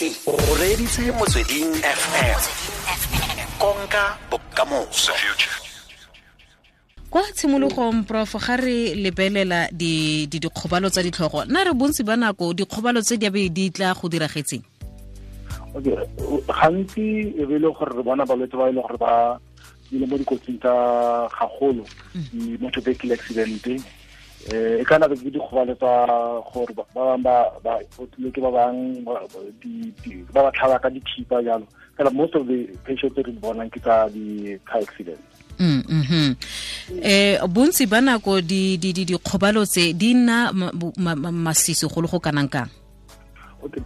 O reditse Motsweding FM. Konka bokamoso. Kwa tshimologong, Prof, ga re lebelela di dikgobalo tsa ditlhogo, nna re bontsi ba nako dikgobalo tse di abe di tla go diragetseng? Okay, gantsi e be e le gore re bona balwetse ba e le gore ba ile mo dikotsing tsa gagolo, di-motor vehicle accident, e kana be ke dikgobalo tsa gore ba bangwe ba otlile ke ba bangwe ba ba tlhaba ka dithipa jalo. Fela most of the patients tse re di bonang ke tsa di-car accident. Bontsi ba nako di dikgobalo tse di nna masisi go le go kanang kang? Okay,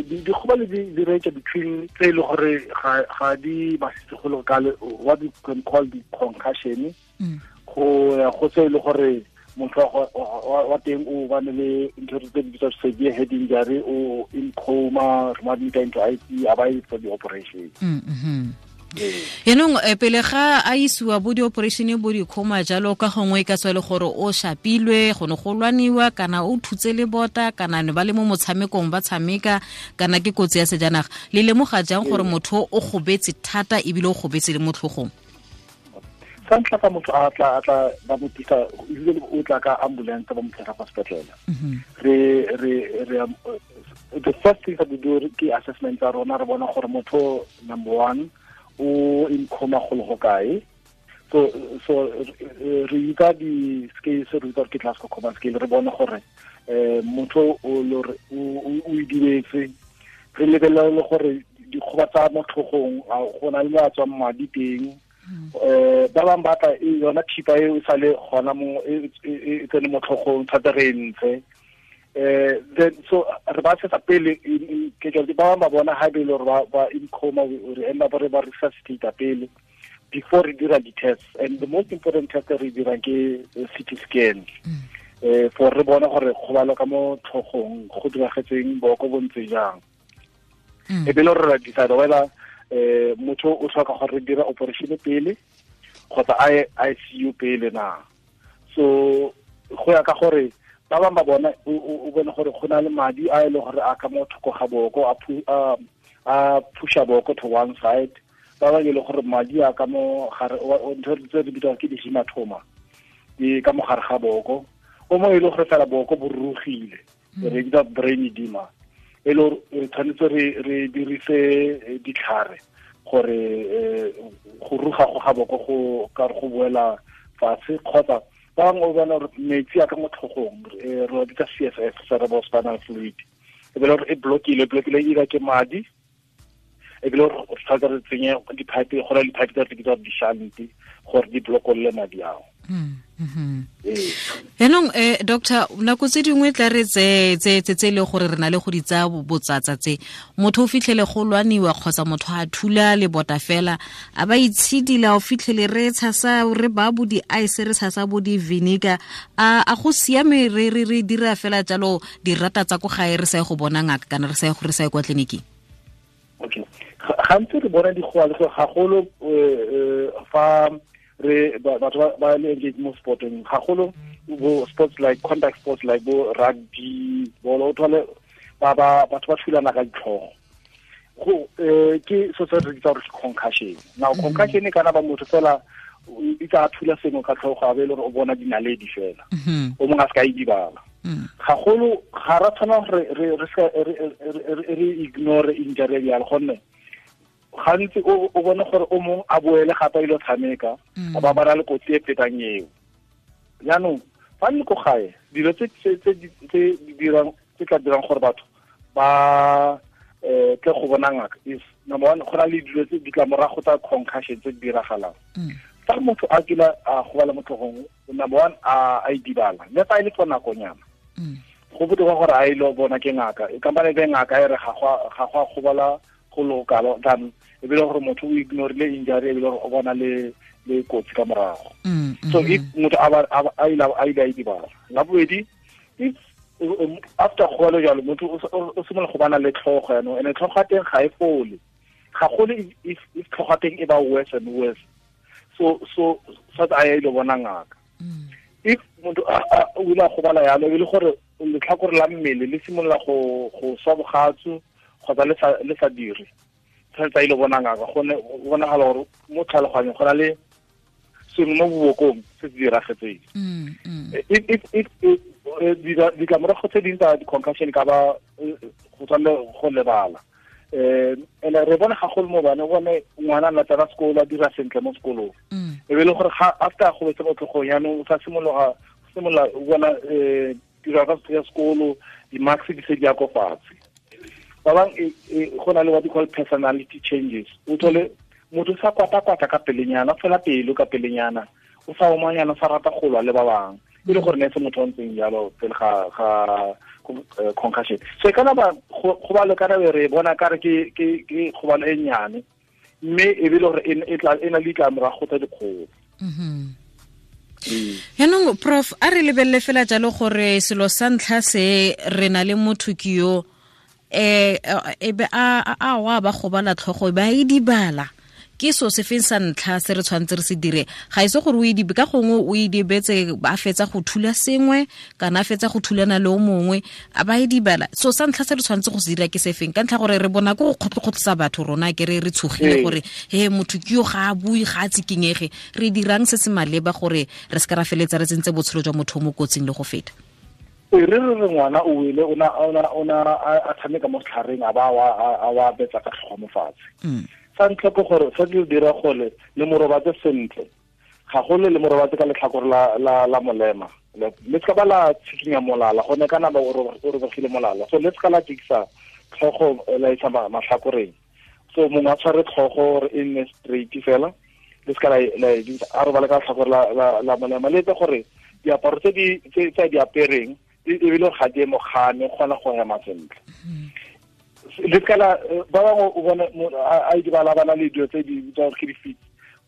dikgobalo di range between tse e le gore ga di masisi go le kalo, what we can call the concussion, go ya go tse e le gore motho wa teng o bane le ntho tse di bitswa severe head injury, o in coma, re mo admit into ICU, a ba for the operation. Yaanong pele ga a isiwa bo di-operation, bo di-coma jalo, ka gongwe e ka tswa e le gore o shapilwe, go ne go lwaniwa, kana o thutse le bota, kana ne ba le mo motshamekong ba tshameka, kana ke kotsi ya sejanaga. Le lemoga jang gore motho o gobetse thata ebile o gobetse le mo tlhogong? Sa ntlha, fa motho a tla ba mo tlisa, usually o tla ka ambulance, ba mo tlisa kwa sepetlele, re the first thing that we do ke assessment tsa rona. Re bona gore motho, number one, o in coma go le go kae. So re itsa di-scales, re itsa gore ke Glasgow Coma Scale, re bone gore motho o o idibetse. Re lebelela le gore dikgoba tsa mo tlhogong, go na le mo a tswang madi teng. Ba bangwe ba tla yona thipa e e sale gona mo e tsene mo tlhogong thata, re e ntshe. Then so re ba setsa pele ke ba bangwe ba bona ha be le gore ba in coma, re end up re ba resuscitate pele before re dira di-tests. And the most important test re dirang ke CT scan, for re bona gore kgobalo ka mo tlhogong go diragetseng, boko bo ntse jang. E be le gore re decide whether motho o tlhoka gore re dira operation pele kgotsa ICU pele na. So go ya ka gore ba bangwe ba bona o bone gore go na le madi a e leng gore a ka mo thoko ga boko, a pusha boko to one side. Ba bangwe e le gore madi a ka mo gare, ntho tse re bitswang ke di-hematoma, di ka mo gare ga boko. O mongwe e le gore fela boko bo rurugile, re bitsa brain edema, e le gore re tshwanetse re dirise ditlhare gore go ruga go ga boko go ka go boela fatshe. Kgotsa ba bangwe o bona gore metsi a ka mo tlhogong, re wa bitsa CSF, cerebrospinal fluid, e be le gore e blockile either ke madi, e bile gore re tshwanetse re tsenye di-pipe, go na le di-pipe tse re bitsa di-shunt gore di blokolle madi ao. Yaanong doctor, nako tse dingwe tla re tse e le gore re na le go di tsaya botsatsa tse, motho o fitlhele go lwaniwa kgotsa motho a thula lebota fela, a ba itshidila, o fitlhele re tshasa, re ba bo di-ice, re tshasa bo di-vinegar. A go siame re dira fela jalo dirata tsa ko gae, re sa ye go bona ngaka, kana re sa ye kwa tleliniking? Okay, gantsi re bona dikgobalo gagolo fa re batho ba le engage mo sporteng, gagolo bo sports like contact sports like bo rugby, bolo, o thole ba batho ba thulana ka ditlhogo. Go ke so se re bitsa gore ke concussion. Now, concussion e kana ba motho fela e tsa thula sengwe ka tlhogo, a be le gore o bona dinaledi fela, o mongwe a se ka idibala. Gagolo ga ra tshwana gore re ignore injury bjalo, gonne gantsi o bone gore o mongwe a boele gape a ile tshameka, a ba ba na le kotsi e fetang eo. Jaanong fa le ko gae, dilo tse di dirang, tse tla dirang gore batho ba tle go bona ngaka is, number one, go na le dilo tse ditlamorago tsa concussion tse di diragalang. Fa motho a kile a gobala mo tlhogong, number one, a idibala, le fa e le for nakonyana, go botoka gore a ile bona ke ngaka, e kampane be ngaka e re ga go a gobala go le kalo, than e be le gore motho o ignorile injury, e be le gore o bona le kotsi ka morago. So if motho a ile a idibala, la bobedi, if after gobalo jalo motho o simolola go bana le tlhogo yaanong, and tlhogo ya teng ga e fole gagolo, if tlhogo ya teng e ba worse and worse, so a ya ile bona ngaka. If motho o ile a gobala yalo, e le gore letlhakore la mmele le simolola go swa bogatsu kgotsa kgotsa le sa dire, tshwanetse a ile bona ngaka, gonne bonagala gore mo tlhaloganyong go na le sengwe mo bobokong se se diragetseng. Ditlamorago tse dingwe tsa di-concussion ka ba go tswa le go lebala. Ene re bona gagolo mo bane, bone ngwana a tsena sekolo a dira sentle mo sekolong, e be le gore after a gobetse mo tlhogong, yaanong o sa simolola bona tiro ya sekolo, di-marks di se di ya ko fatshe. Ba bang go na le what you call personality changes. O thole motho sa kwata-kwata ka pelenyana, fela pelo ka pelenyana, o sa omanyana, o sa rata go lwa le ba bangwe, e le gore ne se motho o ntseng jalo pele ga concussion. So e kana ba go ba le kana re bona ka re ke kgobalo e nnyane, mme e be le gore e tla e na le ditlamorago tsa dikgolo. Yaanong prof, a re lebelele fela jalo gore selo sa ntlha se re na le motho ke yo e be a wa ba gobala tlhogo ba e dibala, ke so se feng sa ntlha se re tshwanetse re se dire? Ga ise gore o e dibe ka gongwe o e dibetse a fetsa go thula sengwe kana a fetsa go thulana le o mongwe a ba e dibala. So sa ntlha se re tshwanetse go se dira ke se feng? Ka ntlha gore re bona ko go kgotlokgotlisa batho rona ke re tshogile gore he motho ke yo ga a bue, ga a tsikinyege. Re dirang se se maleba gore re se ka ra feletsa re tsentse botshelo jwa motho mo kotsing le go feta? Re re ngwana o wele, o na a tshameka mo setlhareng, a ba a wa betsa ka tlhogo mo fatshe. Sa ntlha ke gore sa di dira gole le morobatse sentle, gagolo le morobatse ka letlhakore la molema, le se ka ba la tshikinya molala, gonne kana ba o robegile molala, so le se ka la jikisa tlhogo la isa matlhakoreng. So mongwe a tshware tlhogo gore e nne straight fela, le se ka la a robale ka letlhakore la molema, le etse gore diaparo tse di apereng ebile ga di mogane kgona go hema sentle. Le ka la ba bangwe o bone a idibala ba na le dilo tse di bitswang ke di-fits.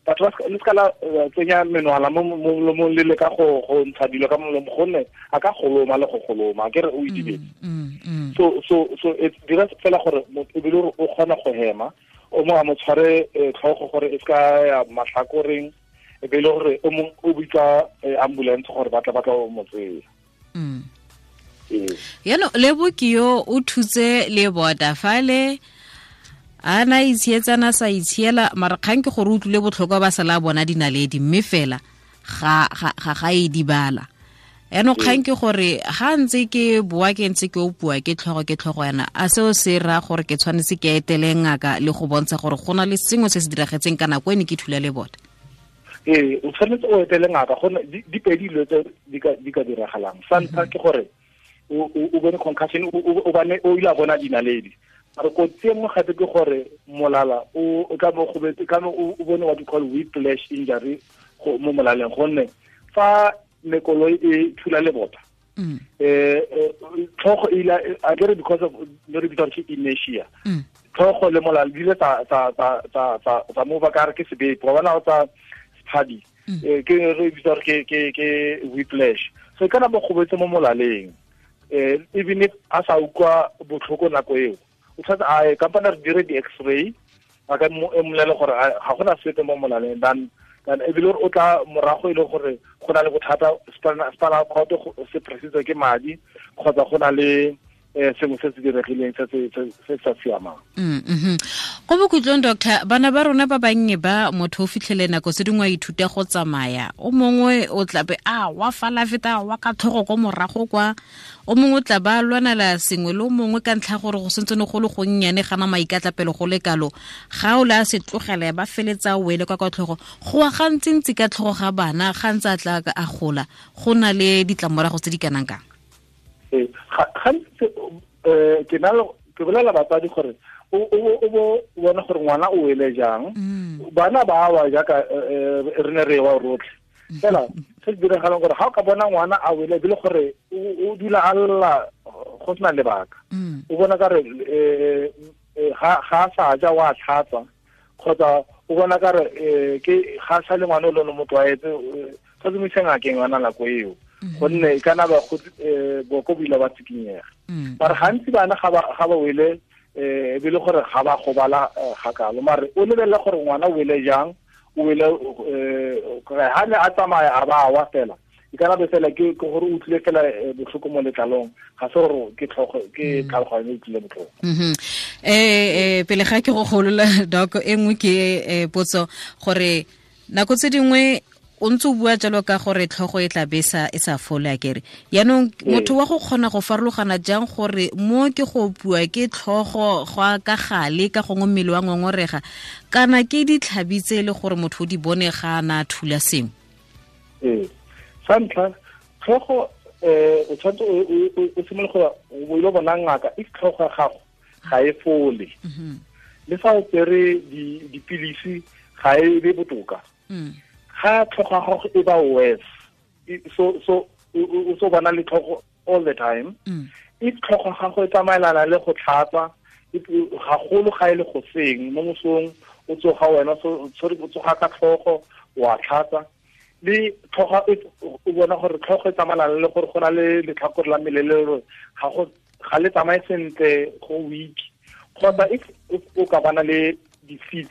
Batho ba le ka la tsenya menwana mo molomong le le ka go ntsha dilo ka molomo, gonne a ka goloma le go goloma, ke re o idibetse. So e dira fela gore ebile gore o kgona go hema, o mo a mo tshware tlhogo gore e se ka ya matlhakoreng, e be le gore o mongwe o bitsa ambulance gore ba tla mo tseya. Yaanong Lebo ke yo o thutse le bota fale a na itshietsana sa itshiela, mara kgang ke gore o utlwile botlhokwa ba sala bona dinaledi, mme fela ga e dibala. Yaanong kgang ke gore ga ntse ke boa ke ntse ke opua ke tlhogo yana, a seo se raya gore ke tshwanetse ke etele ngaka le go bontsha gore go na le sengwe se se diragetseng ka nako e ne ke thula le bota? Ee, o tshwanetse o etele ngaka, gonne di pedi dilo tse di ka diragalang. Sa ntlha ke gore o bone concussion, o bane o ile a bona dinaledi. Mare kotsi e nngwe gape ke gore molala o ka mo gobetse, ka mo o bone what you call whiplash injury mo molaleng, gonne fa mekoloi e thula lebota, tlhogo e ile a kere because of re bitsa ke inertia, tlhogo le molala di ile tsa mova ka re ke sebepo, wa bona o tsa sephadi, ke re bitsa ke whiplash. So e kana mo gobetse mo molaleng, even if a sa utlwa botlhoko nako eo, o tshwanetse a ye kampane re dire di-x-ray, a ka mmolele gore ga gona sepe mo molaleng, than ebile o tla morago e le gore go na le bothata, spinal cord se pressitswe ke madi, kgotsa go na le sengwe se se diregileng se se sa siamang. Go bokhutlong doctor, bana ba rona ba bannye ba motho o fitlhele nako tse dingwe a ithuta go tsamaya, o mongwe o tlabe a wa fala feta wa ka tlhogo ko morago kwa, o mongwe o tla ba lwanela sengwe le o mongwe ka ntlha gore go sentse ne go le gonnyane gana maikatlapelo go le kalo, ga o le a se tlogela ba feletsa o wele kwa kwa tlhogo, go wa gantsintsi ka tlhogo ga bana ga ntse a tla a gola, go na le ditlamorago tse di kanang kang? Gantsi ke na ke bolela batsadi gore o bo bona gore ngwana o wele jang, bana ba wa jaaka re ne re wa rotlhe fela. Se se diragalang gore ga o ka bona ngwana a wele ebile gore o dula a lla go sena lebaka, o bona ka re ga a sa ja wa tlhatsa, kgotsa o bona ka re ke ga sa le ngwana o le mo tlwaetse, sa mo ise ngakeng yona nako eo, gonne e kana ba go boko bo ile ba tsikinyega. Mare gantsi bana ga ba wele ebile gore ga ba gobala ga kalo, mare o lebelela gore ngwana o wele jang, o wele ga ne a tsamaya a ba wa fela, e kana be fela ke gore o utlwile fela botlhoko mo letlalong, ga se gore ke tlhogo ke tlhaloganyo e utlwile botlhoko. Pele ga ke go golola doc, e nngwe ke potso gore nako tse dingwe o ntse o bua jalo ka gore tlhogo e tla besa e sa fole a kere. Yaanong motho wa go kgona go farologana jang gore mo ke go bua ke tlhogo go ka gale ka gongwe mmele wa ngongorega kana ke ditlhabi tse e le gore motho o di bone ga ana thula sengwe? Sa ntlha, tlhogo o tshwanetse o simolole go o ile bona ngaka if tlhogo ya gago ga e fole. Le fa o tsere dipilisi ga e be botoka. Ga tlhogo ya gago e ba worse, so o so bona le tlhogo all the time. If tlhogo ya gago e tsamaelana le go tlhatsa, gagolo ga e le go seng mo mosong o tsoga wena so o tsoga ka tlhogo wa tlhatsa, le tlhogo o bona gore tlhogo e tsamaelana le gore go na le letlhakore la mmele le gore ga le tsamaye sentle go week, kgotsa if o ka bana le di-fits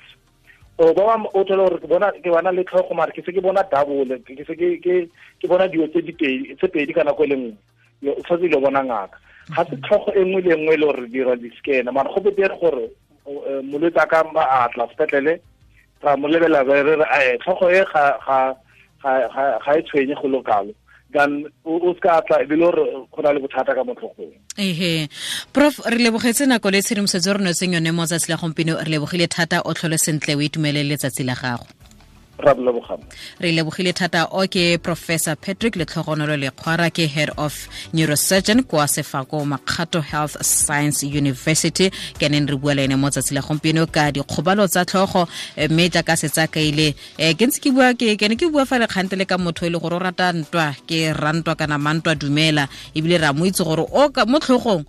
o ba o thola gore ke bona le tlhogo mare ke se ke bona double, ke se ke bona dilo tse pedi ka nako e le nngwe, o tshwanetse ile bona ngaka. Ga se tlhogo e nngwe le nngwe e le gore dira di-scan, mara go betere gore molwetse a ka a tla sepetlele ra mo lebelela re re tlhogo e ga e tshwenye go lokalo, than o ska tla e le gore go na le bothata ka mo tlhogong. Ehe, Prof, re lebogetse nako le tshedimosetso re notseng yone mo tsatsi la gompieno. Re lebogile thata, o tlhole sentle, o itumelele letsatsi la gago. Re lebogile thata. O ke Professor Patrick Letlhogonolo Lekgwara, ke Head of Neurosurgeon kwa Sefako Makgatho Health Science University. Ke neng re bua le ene mo tsatsi la gompieno ka dikgobalo tsa tlhogo, mme jaaka setsa kaile ke ntse ke bua ke ne ke bua fa le kgante le ka motho e le gore o rata ntwa, ke rantwa kana mantwa dumela, ebile ra mo itse gore o mo tlhogong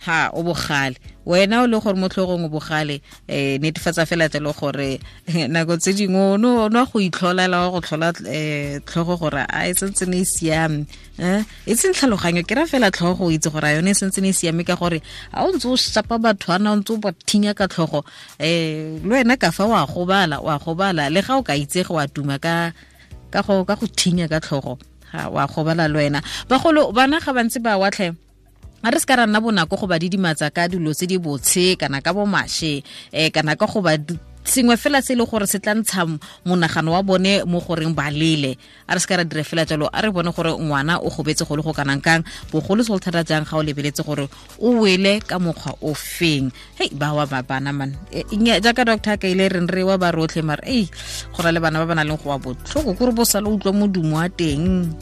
ha o bogale, wena o le gore mo tlhogong o bogale. Netefatsa fela jalo gore nako tse dingwe o no go itlholela go tlhola tlhogo gore a e sentse ne e siame, e seng tlhaloganyo, ke ra fela tlhogo o itse gore a yone e sentse ne e siame, ka gore a o ntse o shapa batho ana o ntse o ba thinya ka tlhogo, le wena ka fa wa gobala le ga o ka itsege wa tuma ka go thinya ka tlhogo, ga wa gobala le wena. Bagolo bana ga bantse ba watlhe, a re se ka ra nna bonako go ba didimatsa ka dilo tse di botshe kana ka bomashe, kana ka go ba sengwe fela se e le gore se tla ntsha monagano wa bone mo goreng ba lele. A re se ka ra dira fela jalo, a re bone gore ngwana o gobetse go le go kanang kang, bogolo segolo thata jang ga o lebeletse gore o wele ka mokgwa o feng. Hei, ba wa ba bana man, jaaka doctor ka ile reng re wa ba rotlhe, mare ei go na le bana ba ba nang le go wa botlhoko kore bo sale utlwa modumo wa teng.